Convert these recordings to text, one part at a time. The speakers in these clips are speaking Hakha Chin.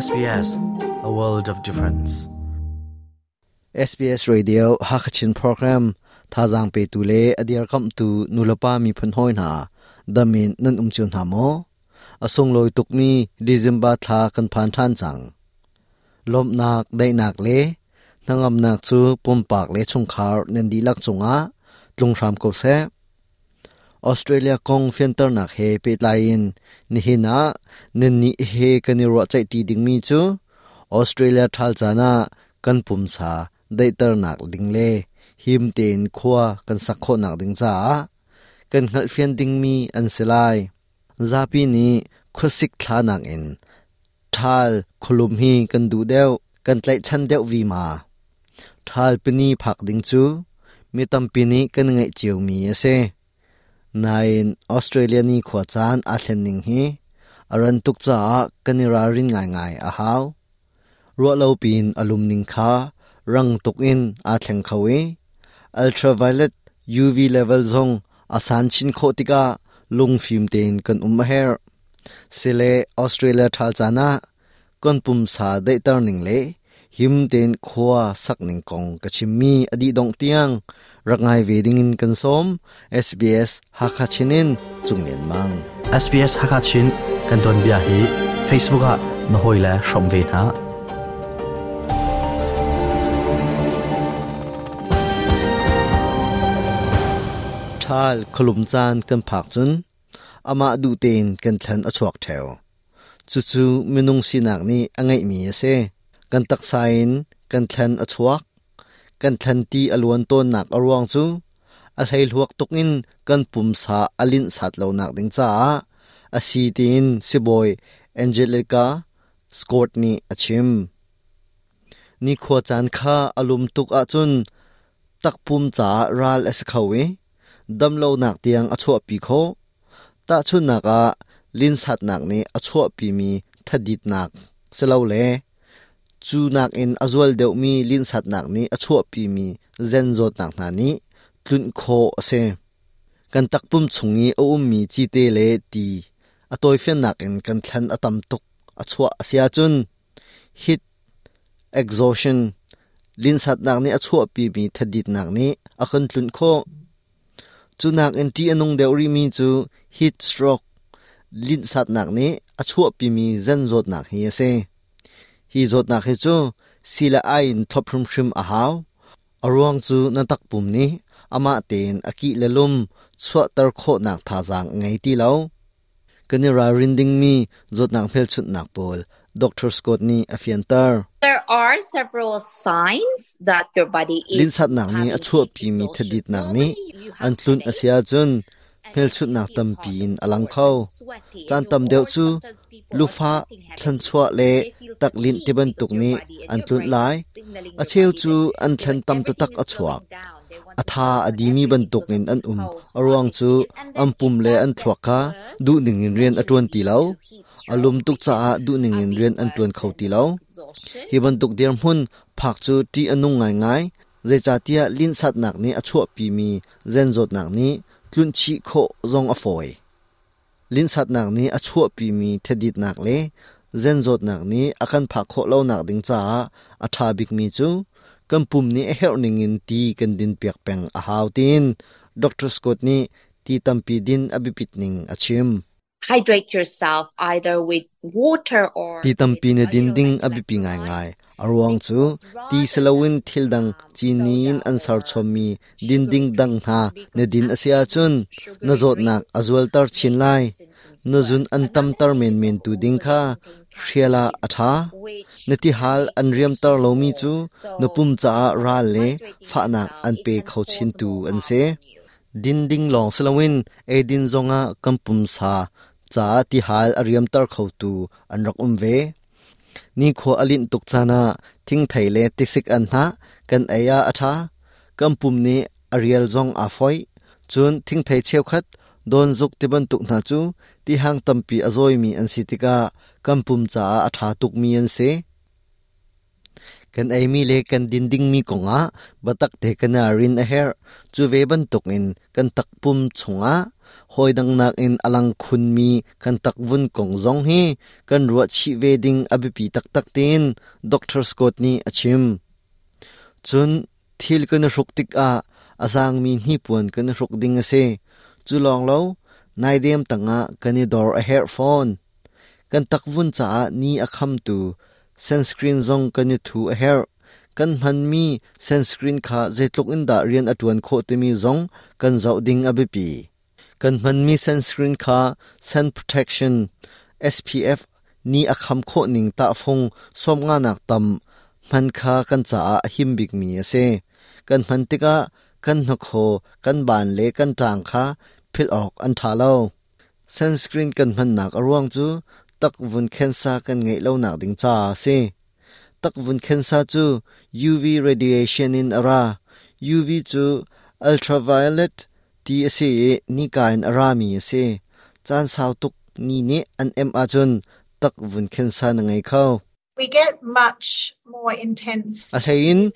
SBS, a world of difference. SBS Radio Hakachin program thazaang petu le a dirkamhtu nulepa miphun hawi hna damin nan um cio hna maw? A sunglawi tukmi December thla kan phan ṭhan cang. Lawmhnak, daihnak le hnangamnak cu pumpak le chungkhar nan dihlak cungah tlung hram ko seh. Australia kong fianternak he pehtlai in nihin ah nannih he kan i ruahceihṭi dingmi cu Australia ṭhal caan ah kan pumsa daihternak ding le him tein khua kan sak khawhnak ding caah kan hngalhfian dingmi an si lai. Zapi nih khuasik thla nakin ṭhal khualum hi kan duh deuh, kan tlaihchan deuh vima. Ṭhal pini phak ding cu mi tampi nih kan ngaih ciomi a si. Nain Australia ni khua caan aa thlen ning hi a ran tuk caah kan i ralrin ngaingai a hau. Ruahlo piin a lum ning kha rang tuk in aa thleng kho i ultraviolet UV level zong a san chin khawh tikah lungfim tein kan um a herh. Sile Australia ṭhal caan ah kan pumsa daihter ning le him tein khua sak ning kong ka chimmi a dih dongh tiang rak ngai ve ding in kan sawm. SBS Hakha Chin in Cung Lian Mang. SBS Hakha Chin kan don bia hi Facebook ah na hawi le hrawm ve hna. Ṭhal khualum caan kan phak cun amah duh tein kan thlan a chuak ṭheo. Cucu minung sinak nih a ngeihmi a si. Kan taksa in kan thlan a chuak. Kan thlan ti a luan tawnnak a ruang cu a hleihluak tuk in kan pumsa a linh sat lonak ding caah a si tiin sibawi Angelica Scott nih a chim. Nikhua caan kha a lum tuk ahcun takpum caah ral a si kho i damlonak tiang a chuahpi khawh. Tahchunhnak ah, linhsatnak nih a chuahpimi thaditnak silole cu nakin a zual deuhmi linhsatnak nih a chuahpimi zen zawtnak hna nih tlunh khawh a si. Kan takpum chung i a ummi cite le ti a tawifiannak in kan thlan a tam tuk a chuah a si ahcun heat exhaustion linhsatnak nih a chuahpimi thaditnak nih a kan tlunh khawh. Cu nakin ṭih a nung deuh rihmi cu heat stroke, linhsatnak nih a chuahpimi zen zawtnak hi a si. Hi zawtnak hi cu sii le ai in thlop hrimhrim a hau. A ruang cu na takpum nih amah tein a kih le lum chuahter khawhnak thazaang a ngei ti lo. Kan i ralrin dingmi zawtnak hmelchunhnak pawl Dr. Scott nih a fianter. There are several signs that your body is Linhsatnak nih a having heat chuahpimi exhaustion. thaditnak nih Normally you an have tlunh a si headaches ahcun and you hmelchunhnak feel tampi hot in of a lang course kho. and sweaty Caan and tam you deuh or cu sometimes people are lufah, sweating heavily. thlanchuah le They feel taklinh fatigued because tibantuk your nih body and an your tlunh brain is lai. signaling A your cheu body cu that an you know thlen tam everything taktak is a chuak. slowing down. They want A to tha slow a down dimi everything bantuk because in of an um. how A hot ruang it cu is. And an then pum if le that an thluak gets kha worse, duhning in it rian a actually ṭuan ti leads lo. to heat A lum stroke, tuk which is caah duhning a in bit rian an worse ṭuan kho than ti lo. heat exhaustion. Hi bantuk dirhmun phak cu ṭih a nung ngaingai. Zeicahtiah linhsatnak nih a chuahpimi zen zawtnak nih tlunhchih khawh zong a fawi. Linhsatnak nih a chuahpimi thaditnak le zen zawtnak nih a kan phak khawh lonak ding caah a ṭha bikmi cu kan pum nih a herh ningin ti kan dinpiak peng a hau tiin Dr. Scott nih ti tampi din a biapit ning a chim. Hydrate yourself either with water or Ti with tampi na you din know ding like a biapi ngaingai. electrolytes A ruang cu because ti rather siloin than thil dang cini in soda an or serchommi din ding sugary dang hna drinks na because din a si actually ahcun these na sugary zawtnak drinks a zualter chin make lai. your symptoms Na zun worse. an Another tamter thing is menmen tu ding also kha they contain hrial ah caffeine a ṭha. which Na can tihal make an you riamter feel lomi more. cu So na pum caah instead of ral le hydrating fahnak yourself, an it pe can kho cause chintu more an harm si. on you. Din ding lawng siloin eidin zongah kan pumsa caah tihal a riamter khotu an rak um ve. Nikhua a linh tuk caan ah thingthei le tisik anhnah kan ei ah a ṭha. Kan pum nih a rial zong aa foih. Cun thingthei cheukhat, dawnzuk tibantuk hna cu tihang tampi a zawimi an si tikah kan pum caah a ṭha tukmi an si. Kan eimi le kan din dingmi kongah biatak te kan i rin a herh. Cu ve bantukin kan takpum chungah Hawi dang nakin a lang khunmi kan takvun kong zong hi kan ruah chih ve ding a biapi taktak tiin Doctor Scott nih a chim. Cun thil kan i hruk tikah a zaangmi hnipuan kan i hruk ding a si. Cu lawng lo, naidem tangah kan i dor a herh fawn. Kan takvun caah ni a khamtu sunscreen zong kan i thu a herh. Kan hmanmi sunscreen kha zeitluk in dah rian a ṭuan khawh timi zong kan zoh ding a biapi. Kan hmanmi sunscreen kha sun protection SPF ni a kham khawh ning tahfung sawmnganak tam hman kha kan caah a him bikmi a si. Kan hman tikah kan hnakhaw, kan baan le kan ṭang kha philh awk an ṭha lo. Sunscreen kan hmannak a ruang cu takvun khensa kan ngeih lonak ding caah a si. Takvun khensa cu UV radiation in a ra. UV cu ultraviolet ti a si i nika in a rami a si. Caan sau tuk ni nih an emh ahcun takvun khensa na ngei kho. We get much more intense A hleiin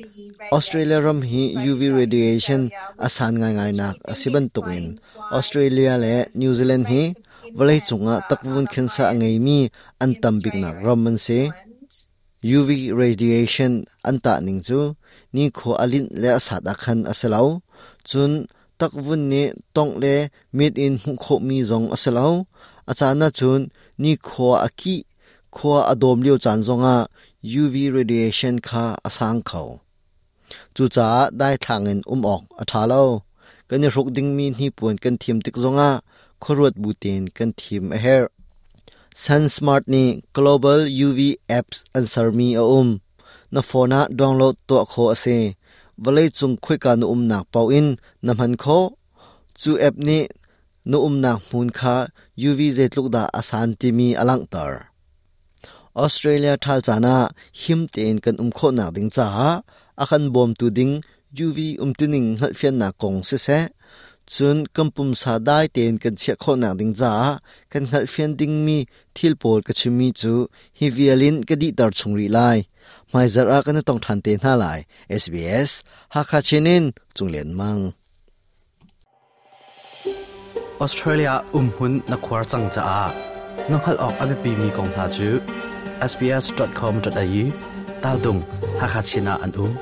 Australia ram hi UV radiation a san ngaingai nak a si bantukin Australia le New Zealand hi vawleicung ah takvun khensa a ngeimi an tam biknak ram an si. UV radiation an tah ning cu nikhua a linh le a sat ah khan a si lo. Cun takvun nih tongh le mit in hmuh khawhmi zong a si lo. A caan ahcun nikhua a kih Khua a dawm lio caan zongah UV radiation kha a sang kho. Cucaah daithlang in um awk a ṭha lo. Kan i hruk dingmi hnipuan kan thim tik zongah khuaruat bu tein kan thim a herh. SunSmart nih Global UV apps an sermi a um. Na phone ah download tuah khawh a si. Vawleicung khoika na umnak paoh in na hman khawh. Cu app nih na umnak hmun kha UV zeitluk dah a san timi a langhter. Australia ṭhal caan ah him tein kan um khawhnak ding caah a kan bawmtu ding UV umtuning hngalhfiannak kong siseh, cun kan pumsa dai tein kan chiah khawhnak ding caah kan hngalhfian dingmi thil pawl ka chimmi cu hi vial in ka dihter chung rih lai. Hmaizarh ah kan i tong ṭhan te hna lai. SBS Hakha Chin in Cung Lian Mang. Australia umhmun na khuar cang caah na hngalh awk a biapimi kong hna cu sbs.com.au taldung Hakha Chin ah an um.